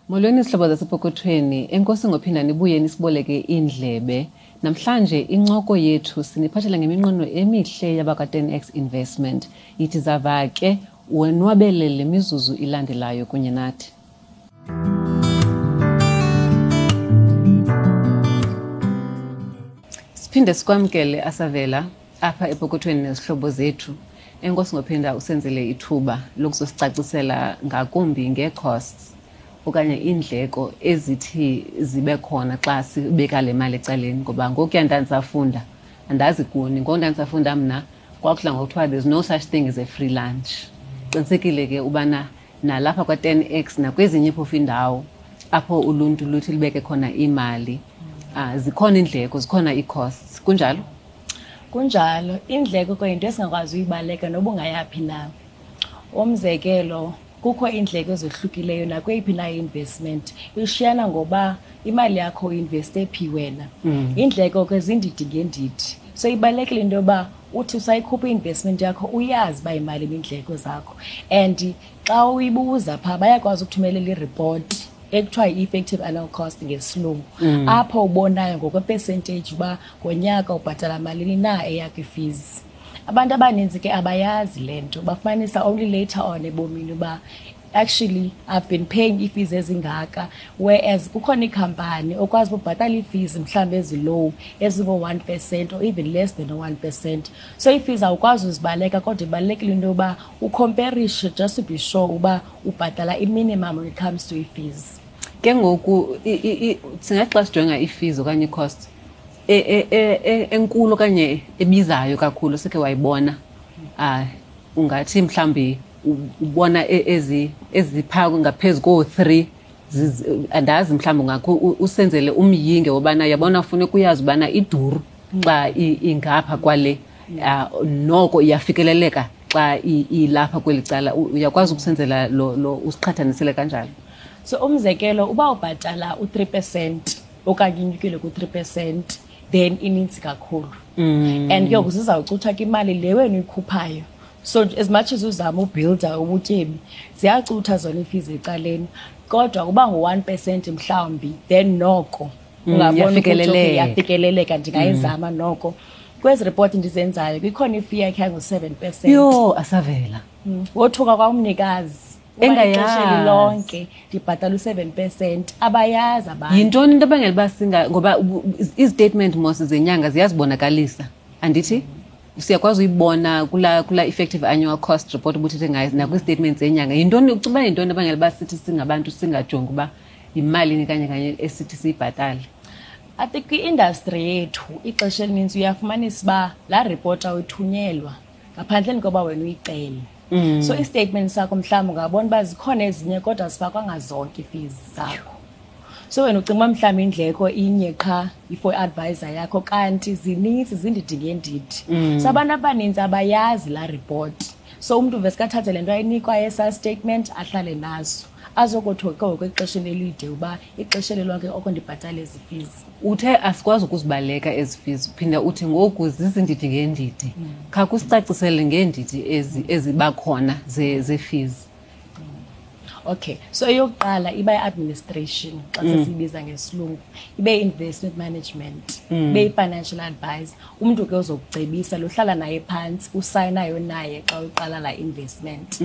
Molweni zihlobo zasepokothweni, enkosi ngophinda nibuye nisiboleke iindlebe. Namhlanje incoko yethu siniphathela ngeminqweno emihle yabakwa-10x Investment. Yithi zava ke wonwabele le mizuzu ilandelayo kunye nathi. Siphinde sikwamkele Asavela apha epokothweni nezihlobo zethu. Enkosi ngophinda usenzele ithuba lokuzosicacisela ngakumbi ngee-costs okanye iindleko ezithi zibe khona xa sibeka le mali ecaleni, ngoba ngokuya ndandisafunda, andazi kuni, ngoku ndandisafunda mna kwakudla ngokuthiwa there's no such thing as a free lunch. Qinisekile ke ubana nalapha kwa-10x nakwezinye phofu iindawo apho uluntu luthi lubeke khona imali, zikhona iindleko, zikhona ii-costs. Kunjalo? Kunjalo. Iindleko ke yinto esingakwazi uyibaleka noba ungayaphi na. Umzekelo, kukho iindleko ezohlukileyo nakweyiphi na i-investment. Ishiyana ngoba imali yakho uinveste phi wena. Iindleko ke zindidi ngeendidi. So ibalulekile into yoba uthi usayikhupha i-investment yakho uyazi uba yimalini iindleko zakho. And xa uyibuza phaa bayakwazi ukuthumelela iripoti ekuthiwa yi-effective annual cost ngesilungu. Apho ubonayo ngokwe-percentage uba ngonyaka ubhatala malini na eyakho i-fees. Abantu abaninzi ke abayazi le nto, bafumanisa only later on ebomini uba actually I've been paying ii-fees ezingaka, whereas kukhona iikhampani okwazi ubhatala ii-fees mhlawumbi ezi-low ezingo-1% or even less than 1%. So ii-fees awukwazi uzibaleka, kodwa ibalulekile into yoba ukhomperishe just to be sure uba ubhatala i-minimum when it comes to ii-fees. Ke ngoku singathi xa sijonga ii-fees okanye ii-costs enkulu okanye ebizayo kakhulu sikhe wayibona, ungathi mhlawumbi ubona eziphaa ngaphezu koo-3, andazi mhlawumbi ungakho usenzele umyinge wobana yabona funeka uyazi ubana iduru xa ingapha kwale, noko iyafikeleleka xa ilapha kweli cala. Uyakwazi ukusenzela lo usiqhathanisele kanjalo? So umzekelo, uba ubhatala u-3% okanye inyukile ku-3%, then inintsi kakhulu. And ke ngoku zizawucutha ke imali le wena uyikhuphayo. So as much as uzama ubuilda ubutyebi, ziyacutha zona ii-fees ecaleni. Kodwa uba ngu-1% mhlawumbi, then noko ungabona ukuthi okay, iyafikeleleka. Iyafikeleleka, ndingayizama noko. Kwezi ripoti ndizenzayo kukhona i-fee yakhe yangu-7%. Yho, Asavela. Wothuka kwamnikazi. Engayazi. Ixesha elilonke ndibhatala u-7%, abayazi abantu. Yintoni into ebangela uba singa, ngoba izi-statement mos zenyanga ziyazibonakalisa, andithi? Siyakwazi uyibona kula effective annual cost report ubuthethe ngayo nakwi-statement zenyanga. Yintoni, ucinga uba yintoni ebangela uba sithi singabantu singajongi uba yimalini kanye kanye esithi siyibhatale? I think kwi-industry yethu ixesha elinintsi uyafumanisa uba laa report awuyithunyelwa ngaphandleni koba wena uyicele. So i-statement sakho mhlawumbi ungabona uba zikhona ezinye kodwa zifakwanga zonke ii-fees zakho. So wena ucinga uba mhlawumbi indleko inye qha for i-advisor yakho, kanti zininzi, zindidi ngeendidi. So abantu abaninzi abayazi laa report. So umntu veske athathe le nto ayinikwa esaa statement ahlale naso, azokothuka ke ngoku exesheni elide uba ixesha elilonke oko ndibhatale ezi fees. Uthe asikwazi ukuzibaleka ezi fees, phinda uthi ngoku zizindidi ngeendidi. Khawukusicacisele ngeendidi eziba khona zee-fees. Okay, so eyokuqala iba i-administration xa sesiyibiza ngesilungu, ibe i-investment management, ibe i-financial advisor. Umntu ke ozokucebisa lohlala naye phantsi, usayinayo naye xa uqala la investment.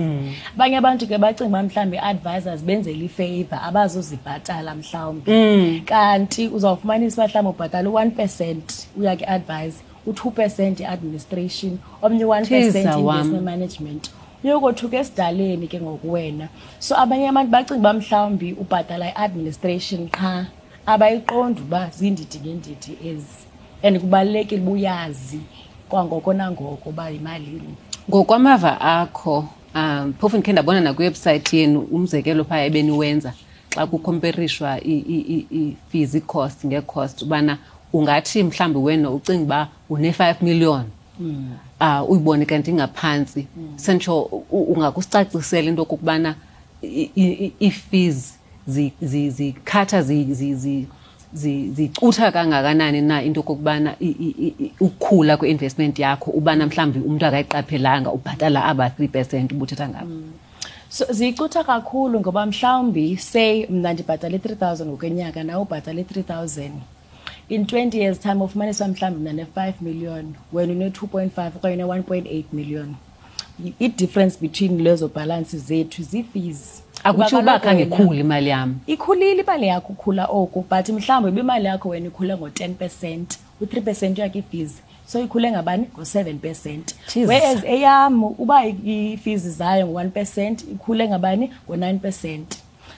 Abanye abantu ke bacinga uba mhlawumbi i-advisors benzela i-favor, abazozibhatala mhlawumbi. Kanti uzawufumanisa uba mhlawumbi ubhatala u-1% uya kwi-advisor, u-2% i-administration, omnye u-1% Thiza wam. investment management. Uyokothuka esidaleni ke ngoku wena. So abanye abantu bacinga uba mhlawumbi ubhatala i-administration qha, abayiqondi uba zindidi ngeendidi ezi. And kubalulekile uba uyazi kwangoko nangoko uba yimalini. Ngokwamava akho, phofu ndikhe ndabona nakwiwebhusayithi yenu umzekelo phaa ebeniwenza xa kukhomperishwa ii-fees, ii-cost ngee-cost, ubana ungathi mhlawumbi wena ucinga uba une-5 million, uyibone kanti ingaphantsi. Sentsho ungakusicacisela into okokubana ii-fees zikhatha zicutha kangakanani na into okokubana ukukhula kwe-investment yakho ubana mhlawumbi umntu akayiqaphelanga ubhatala aba 3% ubuthetha ngabo. So ziyicutha kakhulu ngoba mhlawumbi, say mna ndibhatale i-3000 ngokwenyaka, nawe ubhatale i-3000, in 20 years time ufumanisa mhlawumbi mna ne-5 million, wena une-2.5 okanye une-1.8 million. I-difference between lezo balance zethu zii-fees. Akutsho uba khange ikhule imali yam. Ikhulile imali yakho, ukhula oku, but mhlawumbi ibimali yakho wena ikhule ngo-10%, u-3% yakho ii-fees, so ikhule ngabani? Ngo-7%. Whereas eyam uba ii-fees zayo ngo-1%, ikhule ngabani? Ngo-9%.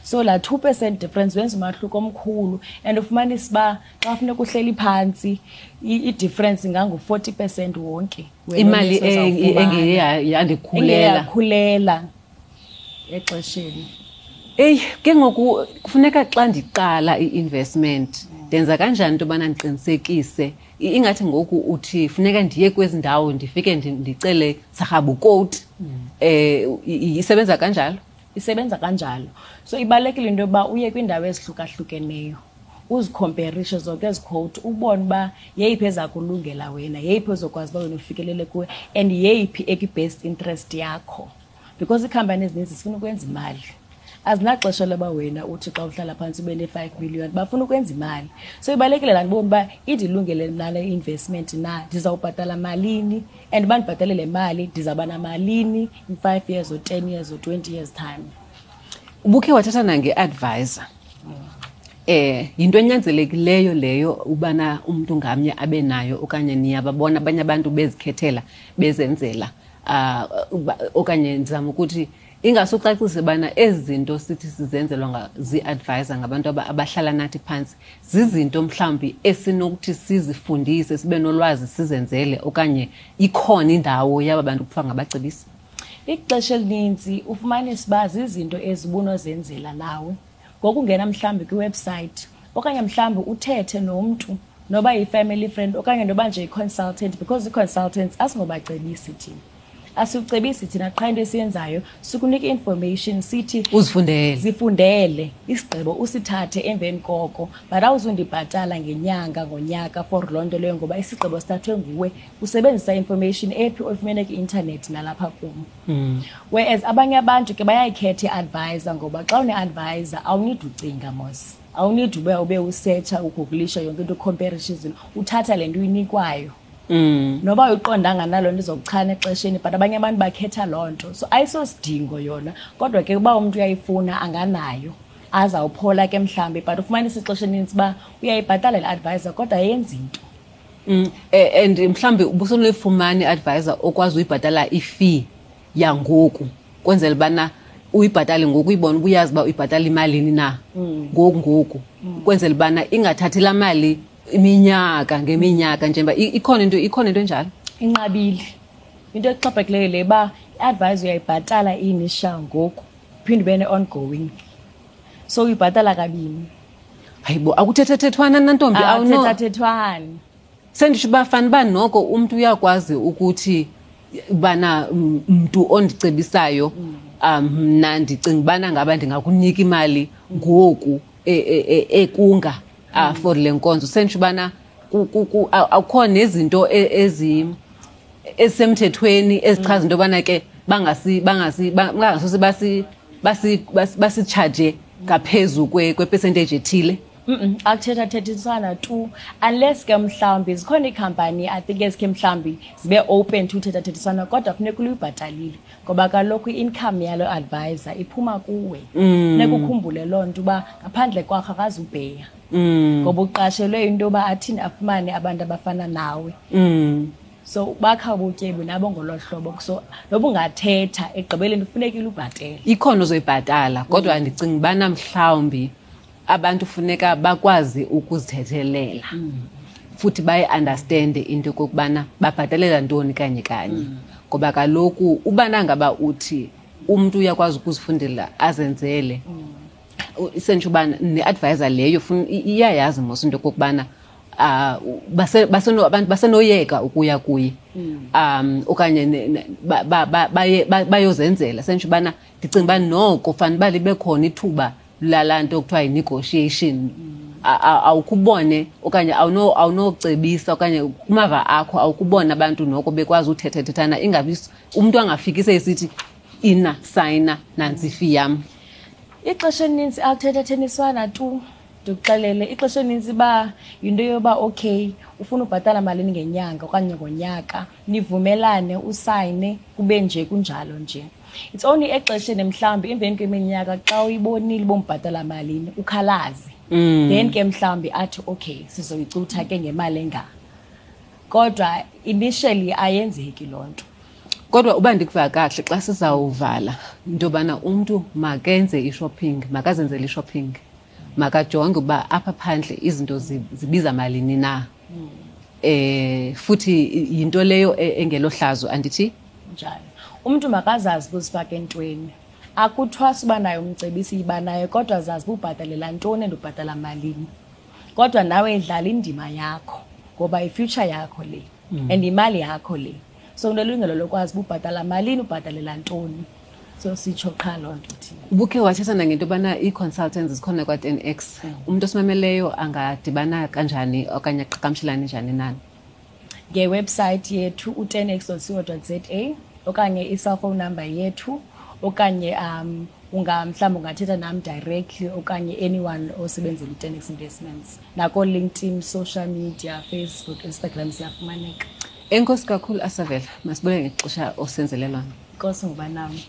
So laa 2% difference wenza umahluko omkhulu, and ufumanisa uba xa funeka uhleli phantsi, i-difference ingangu-40% wonke. Imali engeye yandikhulela. Engeyakhulela exesheni. Eyi, ke ngoku kufuneka xa ndiqala i-investment, ndenza kanjani into yobana ndiqinisekise? Ingathi ngoku uthi funeka ndiye kwezi ndawo, ndifike ndicele sarhabukoti. Isebenza kanjalo? Isebenza kanjalo. So ibalulekile into yokuba uye kwiindawo ezihlukahlukeneyo, uzikhomperishe zonke ezi quote, ubone uba yeyiphi eza kulungela wena, yeyiphi ozokwazi uba wena ufikelele kuwe, and yeyiphi ekwi-best interest yakho. Because iikhampani ezininzi zifuna ukwenza imali. Azinaxesha loba wena uthi xa uhlala phantsi ube ne-5 million, bafuna ukwenza imali. So ibalulekile laa ndibone uba indilungele mna le investment na, ndizawubhatala malini, and uba ndibhatale le mali ndizawuba namalini in 5 years or 10 years or 20 years time. Ubukhe wathatha nange-advisor. Yinto enyanzelekileyo leyo ubana umntu ngamnye abe nayo, okanye niyababona abanye abantu bezikhethela bezenzela? Okanye ndizama ukuthi ingasucacise bana ezi zinto sithi sizenzelwa zii-advisor ngabantu abahlala nathi phantsi, zizinto mhlawumbi esinokuthi sizifundise, sibe nolwazi, sizenzele, okanye ikhona indawo yaba bantu kuthiwa ngabacebisi? Ixesha elininzi ufumanisa uba zizinto ezibunozenzela nawe ngokungena mhlawumbi kwiwebsite, okanye mhlawumbi uthethe nomntu, noba yi-family friend okanye noba nje yi-consultant, because ii-consultants asingobacebisi thina. Asicebisi thina, qha into esiyenzayo sikunika i-information, sithi uzifundele. Zifundele, isigqibo usithathe emveni koko, but awuzundibhatala ngenyanga, ngonyaka for loo nto leyo, ngoba isigqibo sithathwe nguwe usebenzisa information ephi oyifumene kwi-intanethi nalapha kum. Whereas abanye abantu ke bayayikhetha i-advisor, ngoba xa une-advisor awunidi ucinga mos, awunidi ube usetsha, ugugulisha yonke into, ukhomperisha izinto, uthatha le nto uyinikwayo. Noba uyiqondanga naloo nto izokuchana exesheni, but abanye abantu bakhetha loo nto. So ayisosidingo yona, kodwa ke uba umntu uyayifuna anganayo, azawuphola ke mhlawumbi, but ufumanisa ixesha elinintsi uba uyayibhatala le advisor kodwa ayenzi nto. And mhlawumbi ubusonoyifumana i-advisor okwazi uyibhatala i-fee yangoku, kwenzela ubana uyibhatale ngoku, uyibone uba uyazi uba uyibhatala imalini na ngoku ngoku, kwenzela ubana ingathathi laa mali iminyaka ngeminyaka, njengoba ikhona into enjalo. Inqabile into exhaphakileyo le uba i-advisor uyayibhatala i-initial ngoku, uphinde ube ne-ongoing, so uyibhatala kabini. Hayibo, akuthethethethwana nantombi? Akuthethathethwani. Senditsho uba fana uba noko umntu uyakwazi ukuthi bana mntu ondicebisayo, mna ndicinga ubana ngaba ndingakunika imali ngoku ekunga for le nkonzo. Senditsho ubana akukho nezinto ezisemthethweni ezichaza into yobana ke bangasose basitshaje ngaphezu kwe-percentage ethile. Akuthethathethiswana tu, unless ke mhlawumbi zikhona iikhampani, I think, ezikhe mhlawumbi zibe open to uthethathethiswana, kodwa funeka uluyibhatalile, ngoba kaloku i-income yalo advisor iphuma kuwe. Funeka ukhumbule loo nto uba ngaphandle kwakho akazubheya, ngoba uqashelwe into yoba athini afumane abantu abafana nawe. So bakha ubutyebi nabo ngolo hlobo, so noba ungathetha, ekugqibeleni kufunekile ubhatele. Ikhona ozoyibhatala, kodwa ndicinga ubana mhlawumbi abantu funeka bakwazi ukuzithethelela futhi bayi-understande into yokokubana babhatalela ntoni kanye kanye, ngoba kaloku ubana ngaba uthi umntu uyakwazi ukuzifundela azenzele, isentsho uba ne-advisor leyo iyayazi mos into yokokubana abantu basenoyeka ukuya kuye okanye bayozenzela. Sentsho ubana ndicinga uba noko fanele uba libe khona ithuba lalaa nto kuthiwa yi-negotiation. Awukubone okanye awunocebisa okanye kumava akho awukubona abantu noko bekwazi uthethethethana, ingabi umntu angafiki seyisithi Ina sayina nantsi ifi yam. Ixesha elininzi akuthethatheniswana tu. Ndikuxelele, ixesha elininzi uba yinto yoba okay, ufuna ubhatala malini ngenyanga okanye ngonyaka, nivumelane, usayine, kube nje kunjalo nje. It's only exesheni mhlawumbi emveni kweminyaka xa uyibonile uba umbhatala malini, ukhalaze. Then ke mhlawumbi athi okay, sizoyicutha ke ngemali enga. Kodwa initially ayenzeki loo nto. Kodwa uba ndikuva kakuhle xa sizawuvala into yobana umntu makenze i-shopping, makazenzele i-shopping, makajonge uba apha phandle izinto zibiza malini na. Futhi yinto leyo engelohlazo, andithi? Njalo. Umntu makazazi ukuzifaka entweni. Akuthwasi uba naye umcebisi, yiba naye, kodwa zazi uba ubhatalela ntoni and ubhatala malini. Kodwa nawe idlala indima yakho ngoba i-future yakho le and imali yakho le. So unelungelo lokwazi uba ubhatala malini, ubhatalela ntoni. So sitsho qha loo nto thina. Ubukhe wathetha nangento yobana ii-consultants zikhona kwa-10X. Umntu osimameleyo angadibana kanjani okanye aqhagamshelane njani nani? Ngewebsite yethu u-ten x dot co dot z a okanye i-cellphone number yethu okanye mhlawumbi ungathetha nam directly okanye anyone osebenzela i-10X Investments. Nako-LinkedIn, social media, Facebook, Instagram siyafumaneka. Enkosi kakhulu, Asavela. Masibulele ngexesha osenzele lona. Enkosi ngoba nam.